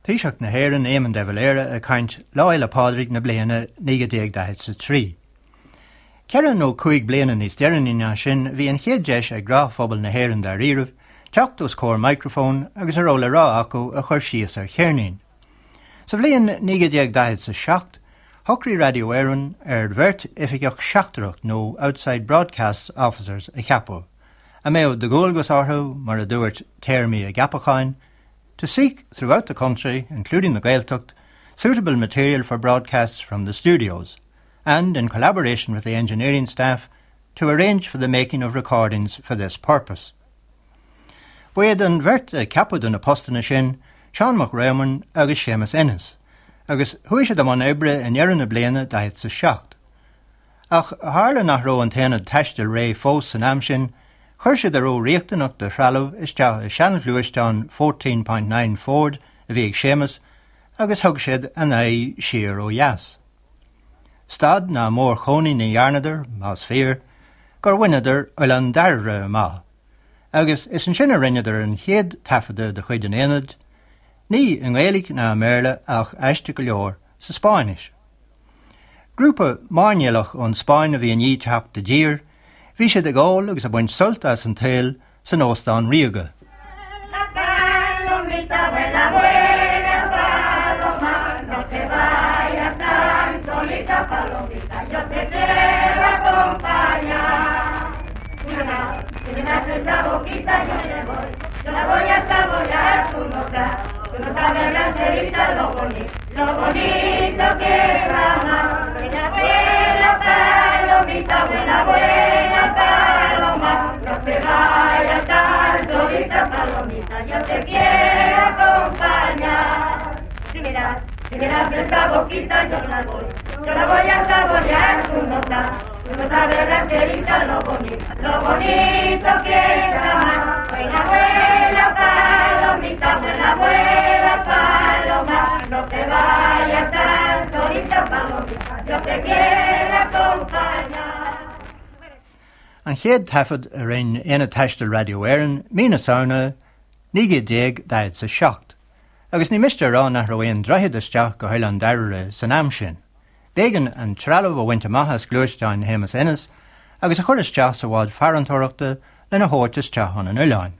Taoiseach na hÉireann Éamon de Valera ag caint Lá Fhéile Pádraig na bliana 1943. Ceithre nó cúig bliana níos deireanaí ná sin bhí an chéad deis ag gnáthphobal na hÉireann dáiríribh teacht os comhair micreafóin agus a raibh le rá acu a chur síos ar cheirnín. Sa bhliain 1947 shocraigh Radio Éireann ar bheirt oifigeach seachtrach nó Outside Broadcast Officers a cheapadh, a mbeadh de dhualgas orthu, mar a dúirt téarmaí a gceapacháin, to seek throughout the country, including the Gaeltacht, suitable material for broadcasts from the studios, and, in collaboration with the engineering staff, to arrange for the making of recordings for this purpose. Ba iad an bheirt a ceapadh do na postanna sin, Seán Mac Réamoinn agus Séamus Ennis, agus chuaigh siad i mbun oibre i ndeireadh na bliana 47. Ach tharla nach raibh an t-aonad taistil réidh fós san am sin, chuir siad a raibh riachtanach de threalamh isteach i seanghluaisteán 14.9 Ford a bhí ag Séamus agus thug siad a n-aghaidh siar ó dheas. Stad ná mórchónaí ní dhearnadar, más fíor, gur bhaineadar Oileán Dairbhre amach, agus is ansin a rinneadar an chéad taifeadadh de chuid an aonaid, ní i nGaeilge ná i mBéarla ach, aisteach go leor, sa Spáinnis. Grúpa mairnéalach ón Spáinn a bhí i ndiaidh teacht i dtír, bhí siad ag ól agus ag baint sult as an tsaol san Óstán Ríoga. Lo bonito que es amar. Buena, buena palomita, buena, buena paloma, no te vayas tan solita, palomita, yo te quiero acompañar. Si me das, si me das esa boquita, yo la voy, yo la voy a saborear tu nota. Tú no sabes, rancherita, lo bonito, lo bonito que es amar. Buena, buena palomita, buena, buena paloma, no te vayas tan solita, palomita, yo te quiero acompañar. An chéad taifead a rinne Aonad Taistil Raidió Éireann, mí na Samhna 1947, agus ní miste a rá nach raibh aon droichead isteach go hOileán Dairbhre san am sin. B'éigean an trealamh a bhaint amach as gluaisteán Shéamus Ennis agus a chur isteach sa bhád farantóireachta lena thabhairt isteach chun an oileáin.